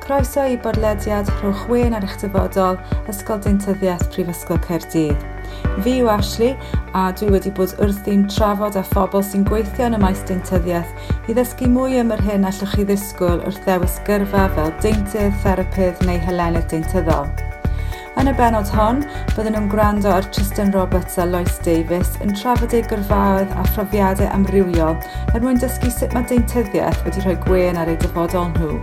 Croeso i bodlediad Rhowch Wên ar eich dyfodol, Ysgol Deintyddiaeth Prifysgol Caerdydd. Fi yw Ashley a dwi wedi bod wrthi'n trafod â phobl sy'n gweithio yn y maes deintyddiaeth i ddysgu mwy am yr hyn allwch chi ddisgwyl wrth ddewis gyrfa fel deintydd, therapydd neu hylenydd deintyddol. Yn y bennod hon, byddwn nhw'n gwrando ar Tristan Roberts a Lois Davies yn trafod eu gyrfaoedd a phrofiadau amrywiol er mwyn dysgu sut mae deintyddiaeth wedi rhoi gwên ar eu dyfodol nhw.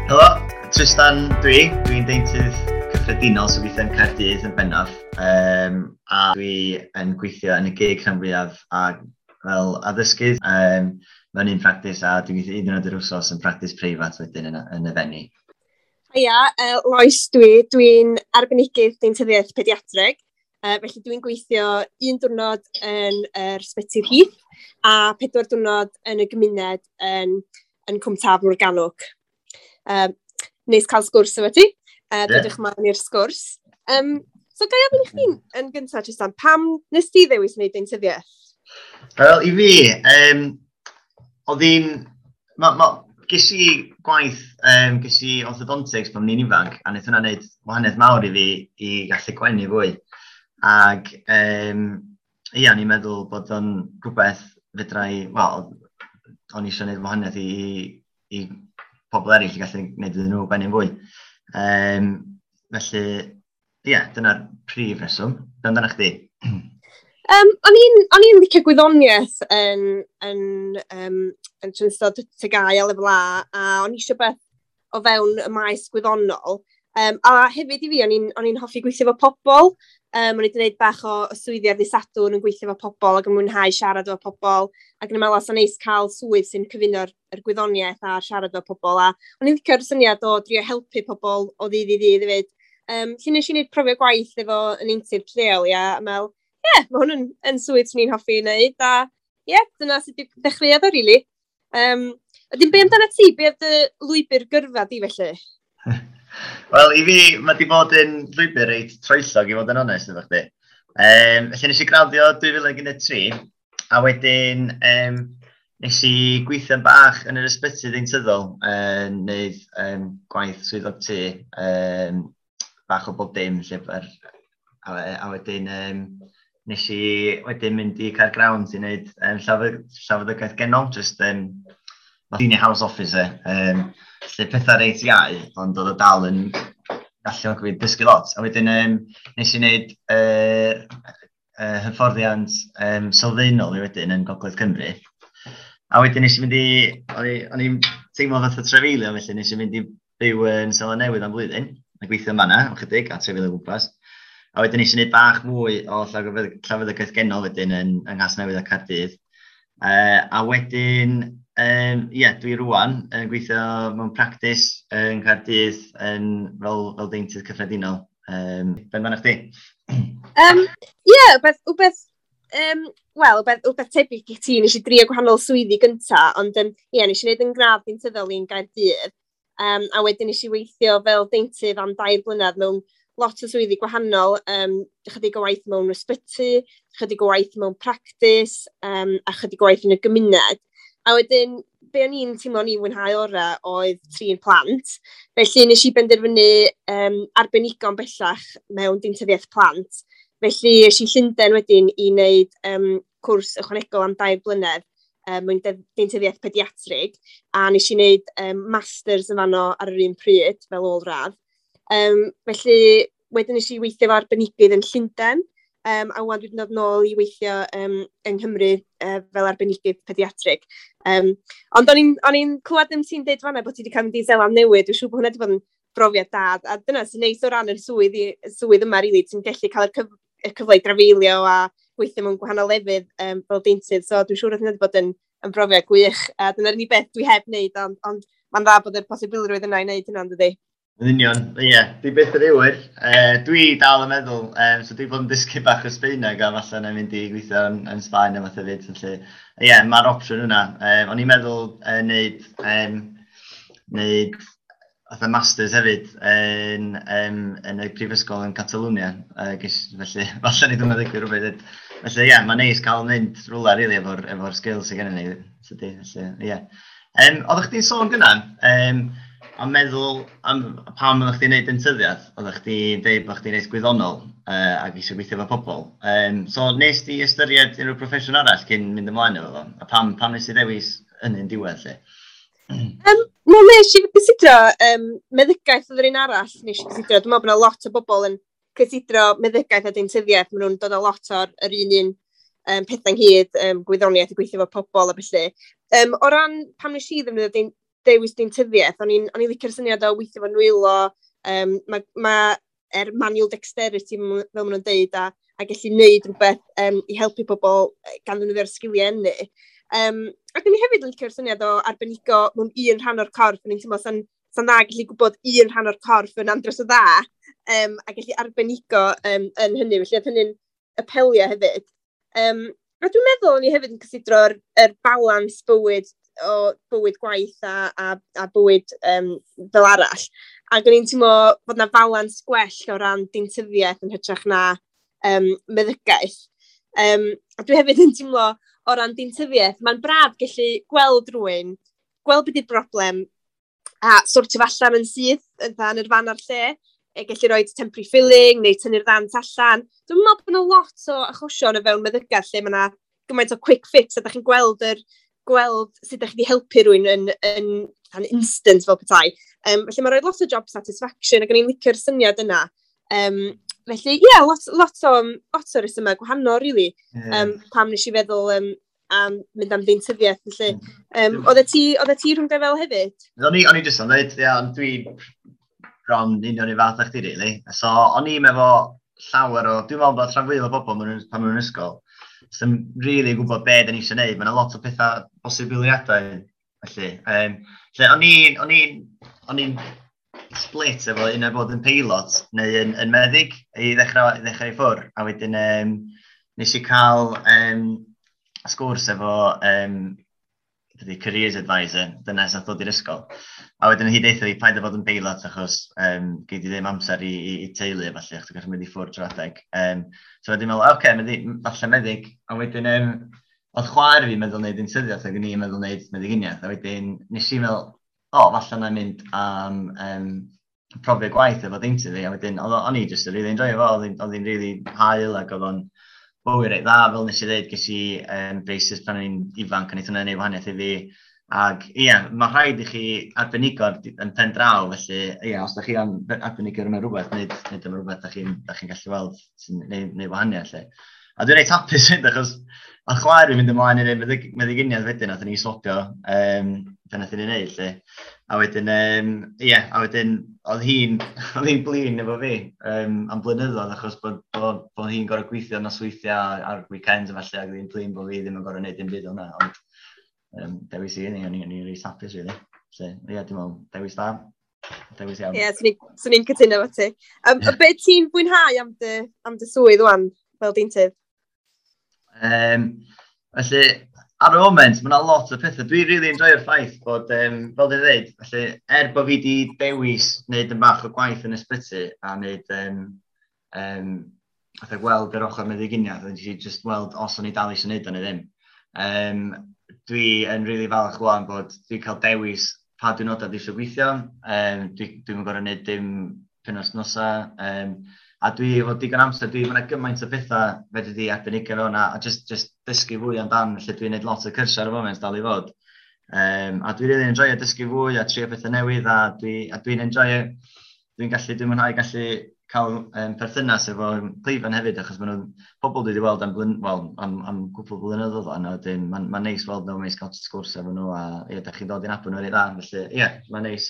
Helo, Tristan dwi. Dwi'n deintydd cyffredinol sy'n gweithio yn Caerdydd yn bennaf. A dwi yn gweithio yn y gig rhan fwyaf a fel addysgydd mewn un practis, a dwi'n gweithio un diwrnod yr wsos yn practis preifat wedyn yn y Fenni. Hiya, Lois dwi. Dwi'n arbenigydd deintyddiaeth pediatreg, felly dwi'n gweithio un diwrnod yn yr Ysbyty'r Heath a 4 diwrnod yn y gymuned yn Cwm Taf Morgannwg. Neis cael sgwrs efo ti. Dodwch mlaen i'r sgwrs. So ga i ofyn i chdi yn gyntaf, Tristan, pam nes ti ddewis wneud deintyddiaeth? Wel, i fi, oedd hi'n... Ges i gwaith, ges i orthodontics pan o'n i'n ifanc, a wnaeth hwnna wneud wahaniaeth mawr i fi i gallu gwenu fwy. Ac ia, o'n i'n meddwl bod o'n rhywbeth fedra i, wel, o'n i eisiau gwneud wahaniaeth i pobl eraill i gallu gwneud iddyn nhw gwenu fwy. Felly, ia, dyna'r prif reswm. Be amdano chdi? O'n i'n licio gwyddoniaeth yn ystod TGAU a lefel A, a o'n i eisiau beth o fewn y maes gwyddonol. A hefyd i fi, o'n i'n hoffi gweithio efo pobl. O'n i wedi gwneud bach o swyddi ar ddydd Sadwrn yn gweithio efo pobl ac yn mwynhau siarad efo pobl. Ac yn meddwl, os o'n neis cael swydd sy'n cyfuno'r gwyddoniaeth a siarad efo pobl. A o'n i'n licio'r syniad o drio helpu pobl o ddydd i ddydd hefyd. Lle nes i wneud profiad gwaith efo yn intern lleol, ia, a meddwl, ie, mae hwn yn swydd swn i'n hoffi i wneud, a ie, dyna sut dechreuodd o, rili. Wedyn, be amdano ti? Be oedd dy lwybr gyrfa di, felly? Wel, i fi, mae di bod yn llwybr reit troellog, i fod yn onest efo chdi. Felly nes i graddio 2013, a wedyn nes i gweithio'n bach yn yr ysbyty ddeintyddol, wneud gwaith swyddog tŷ, bach o bob dim, lle, a wedyn nes i wedyn mynd i Caergrawnt i wneud llawfeddygaeth genol, just senior house officer, lle pethau reit iau, ond oedd o dal yn galluogi fi dysgu lot. A wedyn nes i wneud hyfforddiant sylfaenol i wedyn yn Gogledd Cymru. A wedyn nes i mynd i, o'n i'n teimlo fatha trafeilio, felly nes i mynd i byw yn Seland Newydd am flwyddyn, a gweithio yn fan'na am chydig, a trafeilio o gwmpas. A wedyn nes i wneud bach mwy o llawfeddygaeth genol wedyn yng Nghasnewydd a Caerdydd. A wedyn, ie, dwi rŵan yn gweithio mewn practis yn Caerdydd yn fel deintydd cyffredinol. Be amdano chdi? Ie, wbeth tebyg i ti, nes i drio gwahanol swyddi gynta, ond ie, nes i wneud yn gradd deintyddol i'n Gaerdydd. A wedyn nes i weithio fel deintydd am 2 blynedd mewn lot o swyddi gwahanol, chydig o waith mewn ysbyty, chydig o waith mewn practis, a chydig o waith yn y gymuned. A wedyn, be o'n i'n teimlo o'n i'n mwynhau ora oedd trin plant. Felly nes i benderfynu arbenigo'n bellach mewn deintyddiaeth plant. Felly es i Llundain wedyn i wneud cwrs ychwanegol am 2 blynedd mewn deintyddiaeth pediatrig, a nes i wneud masters yn fanno ar yr un pryd fel ôl-radd. Felly, wedyn nes i weithio efo arbenigydd yn Llundain, a wan dwi wedi dod nôl i weithio yng Nghymru fel arbenigydd pediatrig. Ond o'n i'n clywed am ti'n deud fan'na bod ti wedi cael mynd i Seland Newydd, dwi'n siŵr bod hwnna wedi bod yn brofiad da, a dyna sy'n neis o ran yr swydd yma, rili, ti'n gallu cael y cyfle i drafeilio a gweithio mewn gwahanol lefydd fel deintydd, so dwi'n siŵr bod hwnna wedi bod yn brofiad gwych, a dyna'r unig beth dwi heb wneud, ond mae'n dda bod yr posibilrwydd yna i wneud hynna, dydi? Yn union, ie, dwi byth yn awyr. Dwi dal yn meddwl, so dwi bod yn dysgu bach o Sbaeneg a falle na mynd i gweithio yn Sbaen a fath hefyd, felly, ie, mae'r opsiwn yna. O'n i'n meddwl neud fatha masters hefyd yn y prifysgol yn Catalwnia, felly falle ni ddim yn ddigwydd rhywbeth. Felly, ie, mae'n neis cael mynd rhywle, rili, efo'r skills sydd gennym ni, tydi, felly, ie. Oeddech chdi'n sôn gynna, am meddwl am pam oeddech chdi'n neud dentyddiaeth, oeddech chdi'n deud bod chdi'n reit gwyddonol ac eisiau gweithio efo pobl. So nes di ystyried unrhyw proffesiwn arall cyn mynd ymlaen efo fo? A pam nes ti ddewis hynny'n diwedd lle? No, nes i gysidro meddygaeth oedd yr un arall nes i gysidro. Dwi'n meddwl bod yna lot o bobl yn cysidro meddygaeth a deintyddiaeth. Maen nhw'n dod â lot o'r yr un un pethau ynghyd, gwyddoniaeth a gweithio efo pobl a felly. O ran pam nes i ddefnyddio dewis deintyddiaeth, o'n i'n licio'r syniad o weithio efo nwylo, mae manual dexterity, fel maen nhw'n deud, a gallu gwneud rhywbeth i helpu pobl gan ddefnyddio'r sgiliau hynny. Ac o'n i hefyd yn licio'r syniad o arbenigo mewn un rhan o'r corff. O'n i'n teimlo sa'n dda gallu gwybod un rhan o'r corff yn andros o dda, a gallu arbenigo yn hynny. Felly oedd hynny'n apelio hefyd. A dwi'n meddwl o'n i hefyd yn cysidro'r yr balans bywyd o bywyd gwaith a bywyd fel arall. Ac o'n i'n teimlo fod na balans gwell o ran deintyddiaeth yn hytrach na meddygaeth. A dwi hefyd yn teimlo o ran deintyddiaeth, mae'n braf gallu gweld rhywun, gweld beth yw'r broblem, a sortio fo allan yn syth, yn yr fan a'r lle, e, gallu rhoi temporary filling neu tynnu'r ddant allan. Dwi'n meddwl bod yna lot o achosion o fewn meddygaeth lle mae yna gymaint o quick fix a da chi'n gweld sut ydych chi wedi helpu rhywun yn instant fel petai. Felly mae'n rhoi lot o job satisfaction ac o'n i'n licio'r syniad yna. Felly, ie, yeah, lot o resymau gwahanol, really. Pam nes i feddwl am mynd am ddeintyddiaeth. Felly, oeddet ti rhwng fel hefyd? O'n i jyst yn dweud, ia, ond dwi bron union i fath â chdi, really. So, o'n i'n efo llawer o, dwi'n meddwl bod rhan fwyaf o bobl pan maen nhw'n ysgol, sy'n really gwybod be da ni eisiau gwneud. Mae yna lot o pethau posibiliadau, felly. Lle o'n i'n split efo un o bod yn peilot neu yn meddyg i ddechrau i ffwr. A wedyn nes i cael sgwrs efo dydy careers advisor, dyna sy'n dod i'r ysgol. A wedyn hi deutha fi paid â fod yn peilot achos gei di ddim amser i teulu a falle, achos ti'n gallu mynd i ffwrdd trwy'r adeg. So wedyn meddwl, oce, okay, falle meddyg. A wedyn oedd chwaer fi meddwl wneud deintyddiaeth ac o'n i'n meddwl wneud meddyginiaeth. A wedyn nes i meddwl, o, falle na mynd am profiad gwaith efo deintydd fi. A wedyn, o'n i just yn really enjoy fo, oedd hi'n really hael ac oedd o'n bywyd reit dda, fel nes i ddweud, ges i braces pan o'n i'n ifanc, a wnaeth hwnna wneud wahaniaeth i fi. Ac ie, mae rhaid i chi arbenigo yn pen draw, felly ie, os da chi am arbenigo mewn rhywbeth, nid am rhywbeth da chi gallu weld sy'n neud wahaniaeth. Lle. A dwi'n reit hapus hyd, achos a chwaer fi'n mynd ymlaen i wneud meddyginiaeth wedyn, nath ni swapio be nath ni wneud, lle. A wedyn, ie, a wedyn, oedd hi'n blin efo fi am blynyddoedd, achos bod hi'n gorfod gweithio nosweithiau ar weekends a falle, ac oedd hi'n blin bod fi ddim yn gorfod gwneud dim byd o'na, ond dewis i ni, o'n i'n reit hapus, really. Felly, ie, dwi'n meddwl, dewis da. Dewis iawn. Ie, yeah, swn i'n cytuno efo ti. Be ti'n fwynhau am dy swydd wan, fel deintydd? Felly, ar y moment, mae yna lot o pethau. Dwi'n really enjoyo'r ffaith bod, fel dwi'n dweud, felly, er bod fi wedi dewis wneud yn bach o gwaith yn ysbyty a wneud, fatha gweld yr ochr meddyginiaeth, a nes i just weld os o'n i dal eisiau wneud o neu ddim. Dwi yn really falch wan bod dwi'n cael dewis pa diwrnodau dwi eisiau gweithio. Dwi'n gorfod wneud dim penwythnosa. A dwi efo digon amser, mae yna gymaint o bethau fedri di arbenigo mewn a just dysgu fwy amdan, felly dwi'n gwneud lot o cyrsiau ar y foment dal i fod. A dwi'n really enjoyo dysgu fwy a trio pethau newydd a dwi'n enjoyo, dwi'n mwynhau gallu cael perthynas efo cleifion hefyd, achos maen nhw'n pobl dwi wedi weld well, am gwpl blynyddoedd o'n, a wedyn mae'n ma neis weld nhw, mae'n cael sgwrs efo nhw, a ie, da chi'n dod i'n nabod nhw reit dda, felly ie, mae'n neis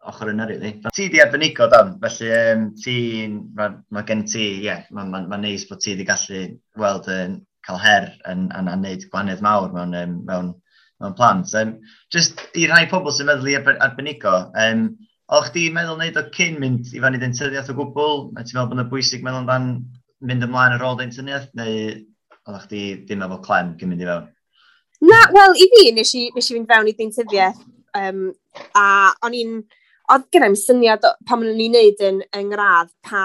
ochr yna, really. Ti di arbenigo dan, felly ma gen ti, ie, yeah, mae'n ma neis bod ti di gallu weld yn cael her yn a wneud gwahaniaeth mawr mewn plant. Just i rhai pobl sy'n meddwl i arbenigo, o'ch chdi meddwl wneud o cyn mynd i fyny dentyddiaeth o gwbl? Neu ti'n meddwl bod yna bwysig meddwl amdan mynd ymlaen ar ôl dentyddiaeth? Neu oeddech chdi ddim efo clem cyn mynd i fewn? Na, wel, i fi, nes i fynd fewn i deintyddiaeth, a oedd gen i'm syniad pan o'n i'n neud yn ngradd pa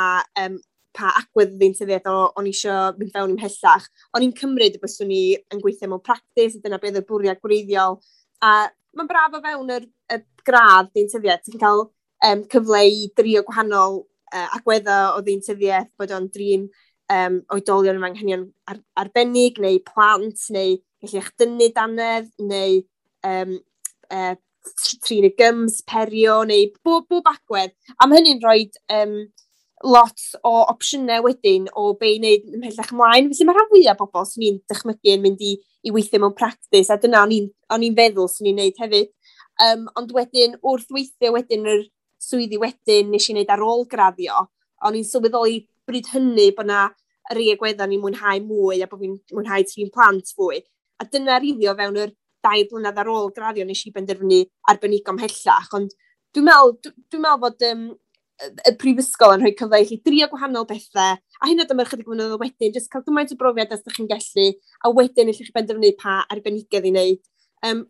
agwedd ddeintyddiaeth o'n i eisiau mynd fewn i'm mhellach. O'n i'n cymryd y byswn i yn gweithio mewn practis, a dyna beth oedd y bwriad gwreiddiol. A mae'n braf o fewn y gradd deintyddiaeth, ti'n cael cyfle i drio gwahanol agweddau o ddeintyddiaeth, bod o'n drin oedolion efo anghenion arbennig, neu plant, neu gallu echdynnu dannedd, neu trin y gyms, perio, neu bob agwedd. A mae hynny'n rhoi lot o opsiynau wedyn o be i wneud ymhellach ymlaen. Felly mae rhan fwyaf o bobl sy'n ni'n dychmygu yn mynd i weithio mewn practis, a dyna o'n i'n feddwl sy'n ni'n wneud hefyd. Ond wedyn, wrth weithio wedyn yr swyddi wedyn nes i wneud ar ôl graddio, o'n i'n sylweddoli bryd hynny bod na rei agweddau ni'n mwynhau mwy a bod fi'n mwynhau trin plant fwy. A dyna rili o fewn yr 2 blynedd ar ôl graddio nes i benderfynu arbenigo ymhellach. Ond dwi'n meddwl fod y prifysgol yn rhoi cyfle i chi drio gwahanol bethau, a hyn oed am ychydig flynyddoedd wedyn, jyst cael gymaint o brofiad as ydych chi'n gallu, a wedyn allwch chi benderfynu pa arbenigedd i wneud.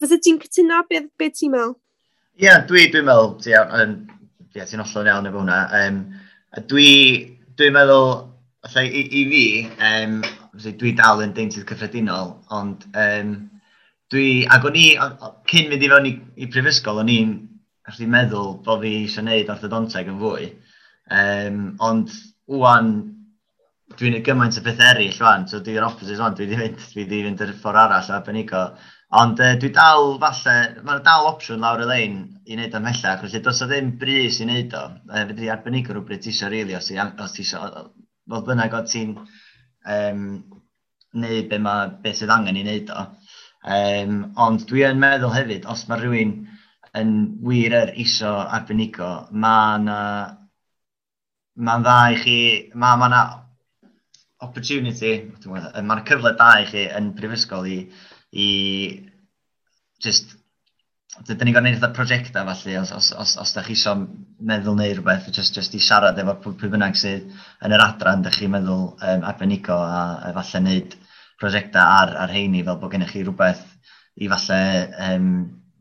Fysa ti'n cytuno? Be ti'n meddwl? Ie, yeah, dwi meddwl, yeah, ti'n hollol iawn efo hwnna. Dwi meddwl, allai, i fi, dwi dal yn deintydd cyffredinol, ond ac o'n i, cyn mynd i fewn i prifysgol, o'n i'n allu meddwl bod fi eisiau gwneud orthodonteg yn fwy. Ond wwan, dwi'n gwneud gymaint o bethau eraill wan, so dwi'n opposite wan, dwi wedi mynd yr ffordd arall o arbenigo. Ond dwi dal falle, mae'n dal opsiwn lawr y lein i wneud ymhellach, felly does o ddim brys i wneud o. Fedri arbenigo rhywbryd ti eisiau rili, os ti eisiau, fodd bynnag o ti'n neud be sydd angen i wneud o. Ond dwi yn meddwl hefyd, os mae rhywun yn wir yr isio arbenigo, mae'n dda i chi, ma na opportunity, mae'n cyfle da i chi yn prifysgol i just, dyn ni'n gorfod gwneud fatha prosiectau falle, os da chi isio meddwl neu rhywbeth, just i siarad efo pwy bynnag sydd yn yr adran, da chi'n meddwl arbenigo a falle wneud prosiectau ar heini fel bod gennych chi rhywbeth i falle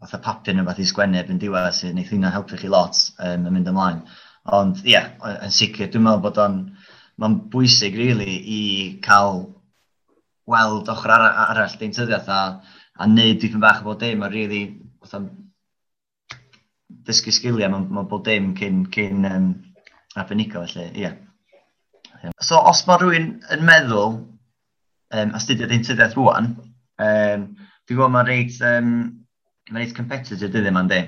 fatha papur neu rhywbeth i sgwennu erbyn diwedd sydd wneith hynna helpu chi lot yn mynd ymlaen. Ond ie, yeah, yn sicr, dwi'n meddwl bod o'n mae'n bwysig really i cael weld ochr arall deintyddiaeth a neud dipyn bach o bob dim a really fatha dysgu sgiliau mewn bob dim cyn arbenigo felly, ie. Yeah. So os mae rhywun yn meddwl astudio deintyddiaeth rwan, dwi'n gwybod mae'n reit competitive dyddiau yma, yndi?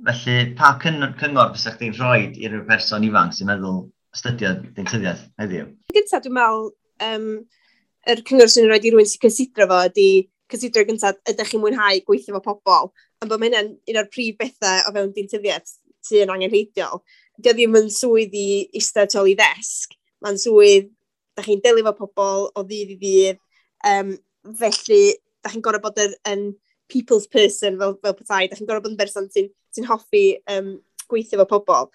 Felly, pa cyngor fysa chdi'n rhoi i ryw person ifanc sy'n meddwl astudio deintyddiaeth heddiw? Gyntaf, dwi'n meddwl, yr cyngor sy'n rhoi i rywun sy'n cysidro fo ydy cysidro gyntaf, ydych chi'n mwynhau gweithio efo pobl? Ond bod hynna'n un o'r prif bethau o fewn deintyddiaeth sy'n angenrheidiol. Dio ddim yn swydd i eistedd tu ôl i ddesg. Mae'n swydd, da chi'n delio efo pobl o ddydd i ddydd. Felly, da chi'n gorfod bod yn people's person fel petai. Da chi'n gorfod bod yn berson sy hoffi gweithio efo pobl.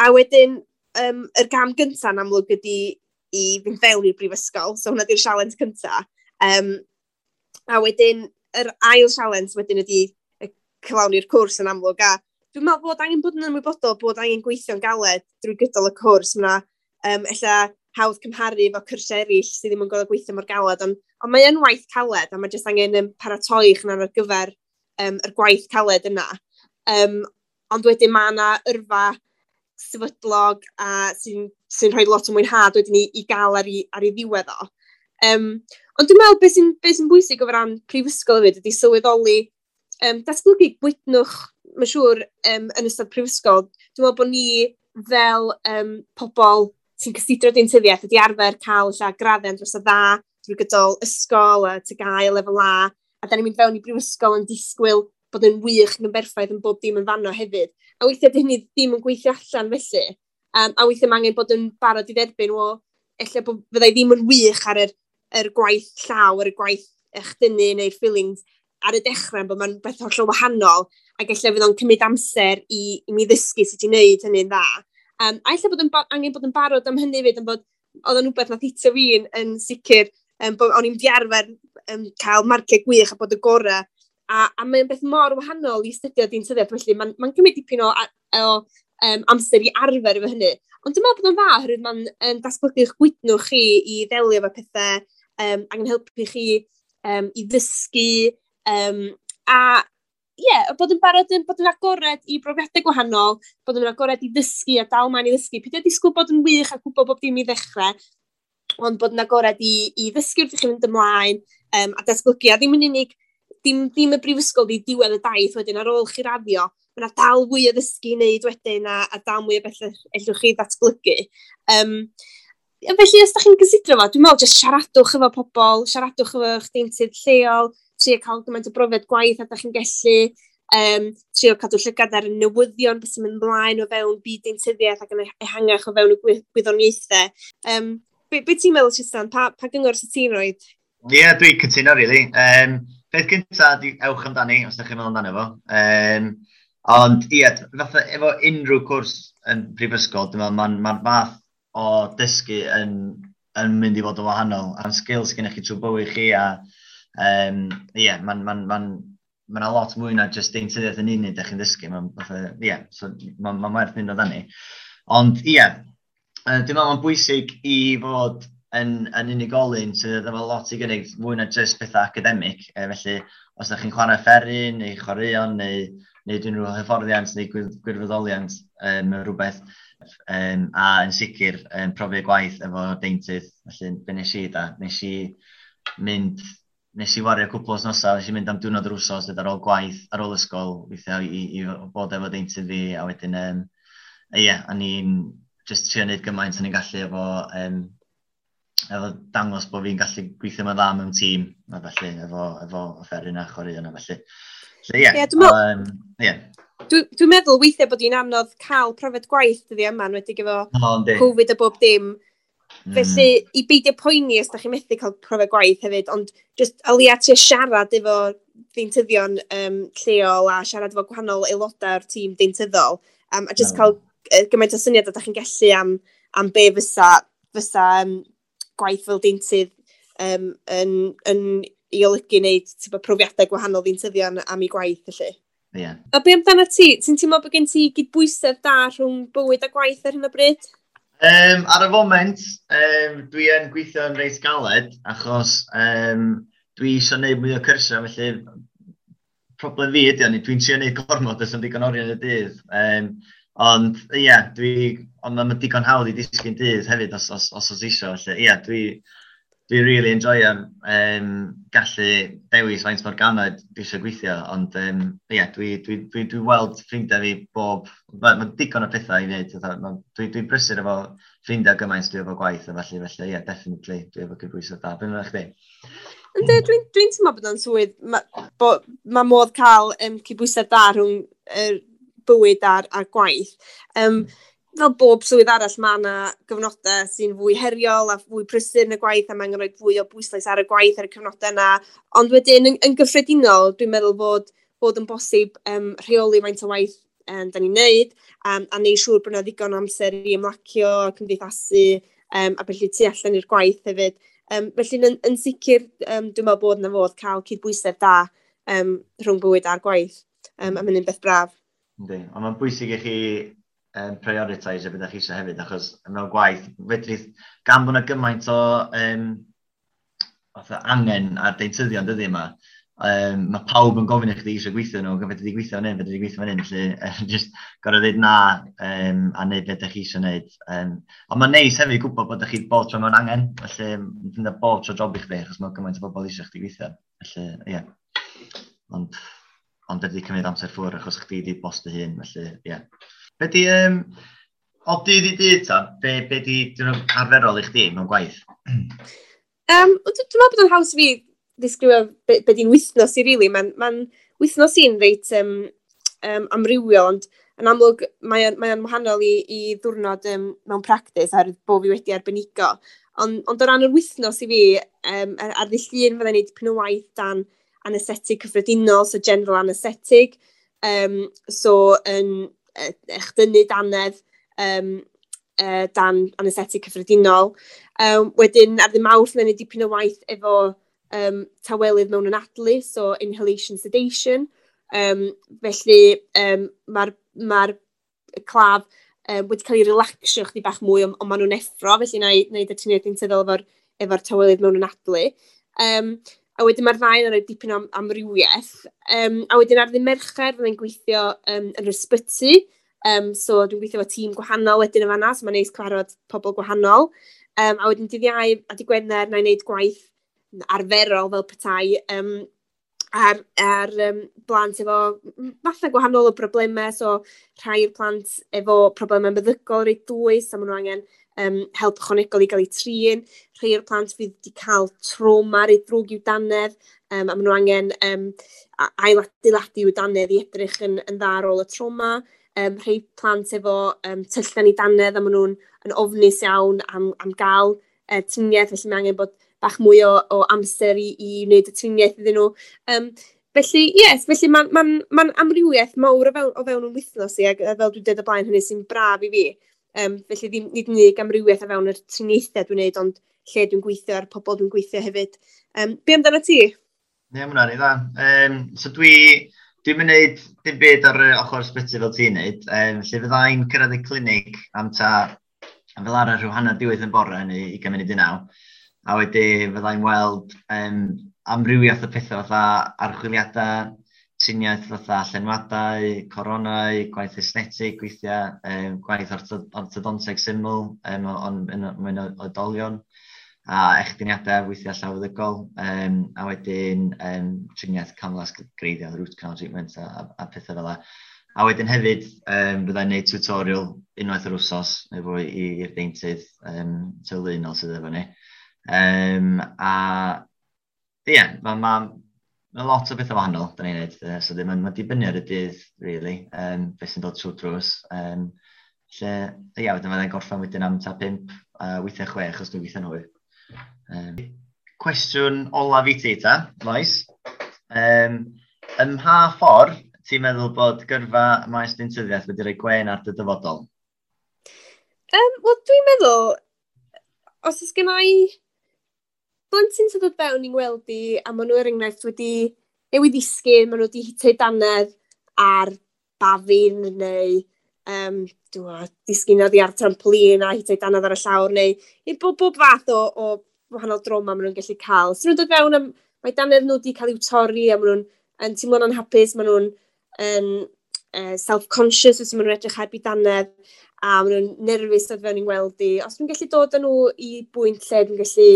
A wedyn, yr gam gyntaf yn amlwg ydy i fynd fewn i'r brifysgol. So hwnna di'r sialens cyntaf. A wedyn, yr ail sialens wedyn ydy cyflawni'r cwrs yn amlwg. A dwi'n meddwl bod angen bod yn ymwybodol bod angen gweithio'n galed drwy gydol y cwrs. Mae ella hawdd cymharu efo cyrsiau eraill sydd ddim yn gorfod gweithio mor galed, ond mae yn waith caled a mae jyst angen paratoi eich ar gyfer yr gwaith caled yna. Ond wedyn mae yna yrfa sefydlog a sy rhoi lot o mwynhad wedyn i gael ar ei ddiwedd o. Ond dwi'n meddwl beth sy'n bwysig o ran prifysgol hefyd ydy sylweddoli datblygu gwydnwch, mae'n siŵr, yn ystod prifysgol. Dwi'n meddwl bod ni fel pobl sy'n cysidro deintyddiaeth ydy arfer cael ella graddau dros o dda drwy gydol ysgol a TGAU lefel A, a da ni'n mynd fewn i brifysgol yn disgwyl bod yn wych ac yn berffaith yn bob dim yn fanno hefyd. A weithiau di hynny ddim yn gweithio allan felly. A weithiau mae angen bod yn barod i dderbyn, o, ella bod fyddai ddim yn wych ar yr gwaith llaw, ar y gwaith echdynnu neu'r fillings ar y dechrau, bod mae'n beth hollol wahanol, ac ella fydd o'n cymryd amser i mi ddysgu sut i wneud hynny'n dda. A ella bod angen bod yn barod am hynny fyd, yn bod oedd o'n rhywbeth nath hitio fi yn sicr, bod o'n i'n di arfer cael marciau gwych a bod y gorau. A mae'n beth mor wahanol i astudio deintyddiaeth, felly mae'n cymryd dipyn o amser i arfer efo hynny. Ond dwi'n meddwl bod o'n dda, oherwydd mae'n datblygu'ch gwydnwch chi i ddelio efo pethau, ac yn helpu chi i ddysgu, A ie, yeah, bod yn barod yn bod yn agored i brofiadau gwahanol, bod yn agored i ddysgu a dal mlaen i ddysgu. Peidio disgwyl bod yn wych a gwybod bob dim i ddechrau, ond bod yn agored i ddysgu wrth i chi fynd ymlaen a datblygu. A ddim yn unig, dim y brifysgol di diwedd y daith wedyn ar ôl chi raddio, mae yna dal fwy o ddysgu i wneud wedyn a dal mwy o bethau ellwch chi ddatblygu. Felly, os da chi'n gysidro fo, dwi'n meddwl jyst siaradwch efo pobl, siaradwch efo eich deintydd lleol, trio cael gymaint o brofiad gwaith a da chi'n gallu, trio cadw llygad ar y newyddion, beth sy'n mynd ymlaen o fewn byd deintyddiaeth ac yn ehangach o fewn y gwyddoniaethau. Be ti'n meddwl, Tristan? Pa gyngor sydd ti'n rhoi? Ie, yeah, dwi'n cytuno, really. Peth gyntaf, di ewch amdani, os ydych chi'n meddwl amdano fo. Ond, ie, yeah, fatha efo unrhyw cwrs yn prifysgol, dwi'n meddwl mae'n ma fath o dysgu yn mynd i fod yn wahanol. A'n skills gennych chi trwy bywyd chi a ie, mae'n ma, ma, ma, ma lot mwy na just deintyddiaeth yn unig ydych chi'n ddysgu. Mae'n ie, so ma werth mynd amdani. Ond ie, dwi'n meddwl mae'n bwysig i fod yn unigolyn sydd efo lot i gynnig mwy na just pethau academig. Felly, os ydych chi'n chwarae offeryn neu chwaraeon neu wneud unrhyw hyfforddiant neu gwirfoddoliant rhywbeth, a yn sicr profiad gwaith efo deintydd. Felly, be nes i da? Nes i wario cwpl o wythnosau, nes i mynd am diwrnod yr wsos ar ôl gwaith, ar ôl ysgol, weithiau i bod efo deintydd fi, a wedyn, ie, yeah, a ni'n just trio wneud gymaint o'n i'n gallu efo dangos bod fi'n gallu gweithio ma'n dda mewn tîm, a felly, efo offeryn a chwaraeon a felly. So, ie. Yeah, dwi'n yeah. Dwi meddwl weithiau bod hi'n anodd cael profiad gwaith dyddiau yma, enwedig efo Covid a bob dim. Felly, i beidio poeni os da chi'n methu cael profiad gwaith hefyd, ond just o leia trio siarad efo deintyddion lleol a siarad efo gwahanol aelodau o'r tîm deintyddol, a just cael gymaint o syniad a da chi'n gallu am be fysa gwaith fel deintydd yn i olygu wneud profiadau gwahanol ddeintyddion am ei gwaith felly. Yeah. A be amdano ti? Ti'n teimlo bod gen ti gydbwysedd da rhwng bywyd a gwaith ar hyn o bryd? Ar y foment, dwi yn gweithio yn reit galed, achos dwi eisiau gwneud mwy o cyrsiau, felly problem fi ydy, ond dwi'n trio gwneud gormod os yn digon oriau yn y dydd. Ond ie, yeah, ond mae'n digon hawdd i disgyn dydd hefyd os eisiau, felly ie, yeah, dwi really enjoyo gallu dewis faint mor galed dwi eisiau gweithio, ond ie, yeah, dwi weld ffrindiau fi bob, mae digon o pethau i wneud, dwi'n brysur efo ffrindiau gymaint dwi efo gwaith, a felly ie, yeah, definitely, dwi efo cydbwysedd da. Be amdano chdi? Ynddi, dwi'n teimlo bod o'n swydd, mae ma modd cael cydbwysedd da rhwng bywyd a'r gwaith. Fel bob swydd arall, mae yna gyfnodau sy'n fwy heriol a fwy prysur yn y gwaith, a mae'n rhoi fwy o bwyslais ar y gwaith ar y cyfnodau yna. Ond wedyn, yn gyffredinol, dwi'n meddwl bod yn bosib rheoli faint o waith da ni'n neud, a neud siŵr bod yna ddigon o amser i ymlacio, cymdeithasu, a felly tu allan i'r gwaith hefyd. Felly, yn sicr, dwi'n meddwl bod yna fodd cael cydbwysedd da rhwng bywyd a'r gwaith, a mae'n un beth braf. Yndi, ond mae'n bwysig i chi prioritise beth chi eisiau hefyd, achos mewn gwaith, fedrith, gan bod yna gymaint o fatha angen ar deintyddion dyddi yma, mae pawb yn gofyn i chdi eisiau gweithio nhw, fedri di gweithio fan hyn, fedri di gweithio fan hyn, felly just gorau dweud na a neud beth ydych chi eisiau neud. Ond mae'n neis hefyd gwybod bod chi bob tro mewn angen, felly dyna bob tro job i chdi, achos mae gymaint o bobl eisiau chdi gweithio. Felly, ie. Yeah. Ond ydy cymryd amser ffwrdd achos chdi di boss dy hun, felly, ie. Yeah. Be di, o dydd i dydd ta, be di arferol i chdi mewn gwaith? Dwi'n meddwl bod o'n haws fi ddisgrifio be di'n wythnos i, really. Mae'n ma wythnos i'n reit amrywiol, ond yn amlwg mae'n mae wahanol i ddwrnod mewn practis oherwydd bod fi wedi arbenigo. Ond o ran yr wythnos i fi, ar ddydd Llun fydda'n neud dipyn o waith dan anesthetig cyffredinol, so general anesthetic. So yn echdynnu dannedd dan anesthetic cyffredinol. Wedyn ar ddydd Mawrth fydda'n neud dipyn o waith efo tawelydd mewn anadlu, so inhalation sedation. Felly mae'r ma claf wedi cael ei relaxio chdi bach mwy, ond maen nhw'n effro, felly na i wneud y triniaeth deintyddol efo tawelydd mewn anadlu. A wedyn mae'r ddau yn rhoi dipyn o amrywiaeth. A wedyn ar ddydd Mercher fyddai'n gweithio yn yr ysbyty. So dwi'n gweithio efo tîm gwahanol wedyn yn fanna, so mae'n neis cyfarfod pobl gwahanol. A wedyn dydd Iau a dydd Gwener na i wneud gwaith arferol fel petai ar blant efo fatha gwahanol o broblemau. So rhai o'r plant efo problemau meddygol reit dwys, a maen nhw angen help ychwanegol i gael eu trin. Rhai o'r plant fydd wedi cael trauma reit ddrwg i'w dannedd, a maen nhw angen ailadeiladu i'w dannedd i edrych yn dda ar ôl y trauma. Rhai plant efo tyllau yn eu dannedd, a maen nhw'n yn ofnus iawn am gael triniaeth, felly mae angen bod bach mwy o amser i wneud y triniaeth iddyn nhw. Felly, yes, felly mae'n ma amrywiaeth mawr o fewn yn wythnos i, ac fel dwi'n dweud o blaen, hynny sy'n braf i fi. Felly ddim, nid yn unig amrywiaeth o fewn yr triniaethau dwi'n gwneud, ond lle dwi'n gweithio a'r pobl dwi'n gweithio hefyd. Be amdano ti? Ie, yeah, mae hwnna'n dda. So dwi'n mynd neud dim byd ar y ochr ysbyty fel ti'n neud. Lle fyddai'n cyrraedd y clinig am ta, fel arfer rhyw 8:30 yn bore neu 8:40. A wedyn fyddai'n weld amrywiaeth o pethau fatha archwiliadau, triniaeth fatha llenwadau, coronau, gwaith esthetig weithiau, gwaith orthodonteg syml, ond mewn oedolion, a echdyniadau weithiau llawfeddygol, a wedyn triniaeth camlas greiddiol, root canal treatment a pethau fel 'na. A wedyn hefyd, byddai'n gwneud tutorial unwaith yr wsos neu fwy i'r deintydd teuluol sydd efo ni. A ie, yeah, mae ma lot o bethau wahanol da ni'n neud. So mae'n ma dibynnu ar y dydd, really, beth sy'n dod trwy drws. Lle, ie, yeah, wedyn fyddai'n gorffen wedyn am ta 5, weithiau 6, os dwi'n gweithio'n hwyr. Cwestiwn olaf i ti, ta, Lois. Ym mha ffordd ti'n meddwl bod gyrfa maes deintyddiaeth wedi rhoi gwen ar dy dyfodol? Wel, dwi'n meddwl, os oes gen i blentyn sy'n dod fewn i'n gweld i, a maen nhw er enghraifft wedi newid ddisgyn, maen nhw wedi hitio dannedd ar bafin neu disgyn oddi ar trampolin a hitio dannedd ar y llawr, neu i bob fath o wahanol droma maen nhw'n gallu cael. So nhw'n dod fewn, am, mae dannedd nhw wedi cael i'w torri a maen nhw'n yn teimlo'n anhapus, maen nhw'n yn self-conscious os maen nhw'n edrych heb i dannedd a maen nhw'n nerfus dod fewn i'n weld i. Os dwi'n gallu dod â nhw i bwynt lle dwi'n gallu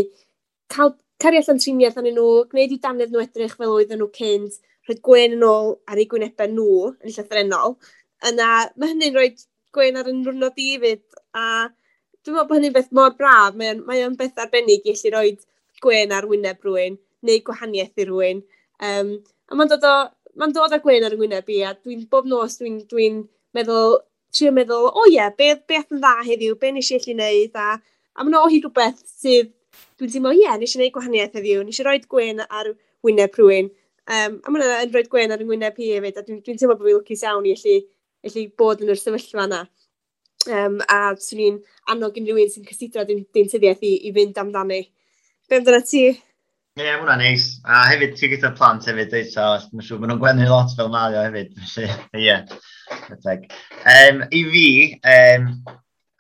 cael cario allan triniaeth arnyn nhw, gwneud i dannedd nhw edrych fel oedden nhw cynt, rhoi gwen yn ôl ar eu gwynebau nhw yn llythrennol, yna mae hynny'n rhoi gwen ar yn niwrnod i hefyd. A dwi'n meddwl bod hynny'n beth mor braf. Mae o'n beth arbennig i allu rhoi gwen ar wyneb rhywun, neu gwahaniaeth i rhywun. A mae'n dod â gwen ar y wyneb i, a dwi'n bob nos dwi'n dwi meddwl, trio meddwl, o ie, beth yn dda heddiw, be nes i allu wneud, a mae'n o hyd rhywbeth sydd dwi'n teimlo, ie, nes i wneud gwahaniaeth heddiw, nes i roi gwen ar wyneb rhywun. A mae'n yn rhoi gwen ar wyneb hi hefyd, a dwi'n dwi teimlo bod fi'n lwcus iawn i allu bod yn yr sefyllfa yna. A swn i'n annog unrhyw un sy'n cysidro deintyddiaeth i fynd amdani. Be amdano ti? Ie, yeah, mae hwnna'n neis. A hefyd, ti'n gyda plant hefyd, dweud, so mae'n siŵr maen nhw'n gwenu lot fel mae o hefyd. Felly, ie, yeah. I fi,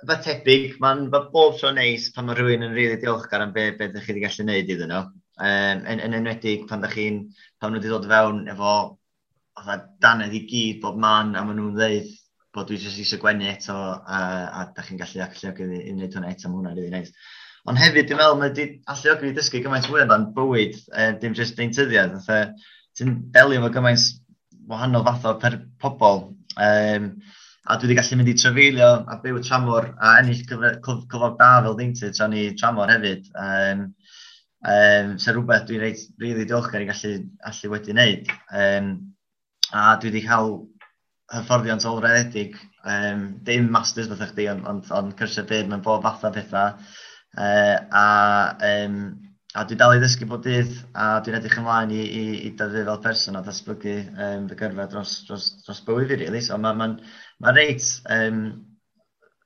fath tebyg, mae'n ma bob tro neis pan mae rhywun yn rili really diolchgar am be ydych chi wedi gallu gwneud iddyn nhw. Yn enwedig pan nhw wedi dod fewn efo fatha dannedd i gyd bob man a maen nhw'n dweud bod dwi jyst eisiau gwenu eto a da chi'n gallu alluogi i wneud hwnna eto, mae hwnna'n rili neis. Ond hefyd, dwi'n meddwl, mae wedi alluogi fi dysgu gymaint fwy amdan bywyd, dim jyst deintyddiaeth. Fatha, ti'n delio efo gymaint wahanol fath o per pobl. A dwi wedi gallu mynd i trafeilio a byw tramor a ennill cyflog da fel deintydd tra ni tramor hefyd. So rhywbeth dwi'n reit really diolchgar i gallu allu wedi wneud. A dwi wedi cael hyfforddiant ôl-raddedig, dim masters fatha chdi, ond cyrsiau byr mewn bob fath o pethau. A dwi dal i ddysgu bob dydd, a dwi'n edrych ymlaen i dyfu fel person a datblygu fy gyrfa dros bywyd fi, really. So mae'n ma reit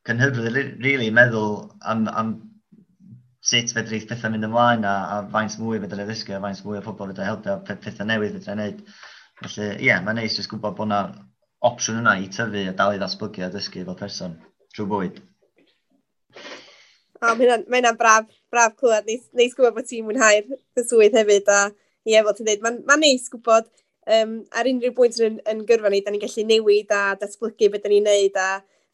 cynhyrfydd, really, meddwl am sut fedrith pethau mynd ymlaen a faint mwy fedra i ddysgu a faint mwy o pobl fedra i helpu a pethau newydd fedra i wneud. Felly, ie, yeah, mae'n neis jyst gwybod bod yna opsiwn yna i tyfu a dal i ddatblygu a dysgu fel person trwy bywyd. O, mae hynna'n braf clywed. Neis gwybod bod ti'n mwynhau'r dy swydd hefyd. A Ie, fel ti'n dweud, mae'n ma neis gwybod ar unrhyw bwynt yn gyrfa ni, da ni'n gallu newid a datblygu beth da ni'n neud a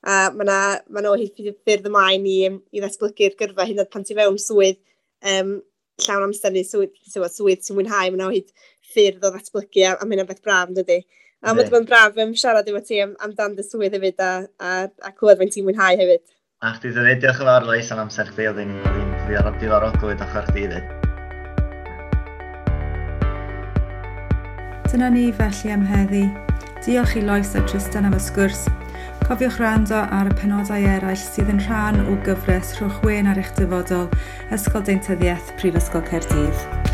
mae yna ma o hyd ffyrdd ymlaen i ddatblygu'r gyrfa hyd yn oed pan ti fewn swydd llawn amser neu swydd ti'n mwynhau, mae yna o hyd ffyrdd o ddatblygu a mae hynna'n beth braf yn dydi. A mae wedi bod yn braf siarad efo ti amdan dy swydd hefyd a clywed faint ti'n mwynhau hefyd. A chdi ddweud, diolch yn fawr Lois am amser chdi, oedd hi'n diddorol glywed ochr chdi hefyd. Dyna ni felly am heddi. Diolch i Lois a Tristan am y sgwrs. Cofiwch rando ar y penodau eraill sydd yn rhan o gyfres Rhowch Wên ar eich dyfodol, Ysgol Deintyddiaeth, Prifysgol Caerdydd.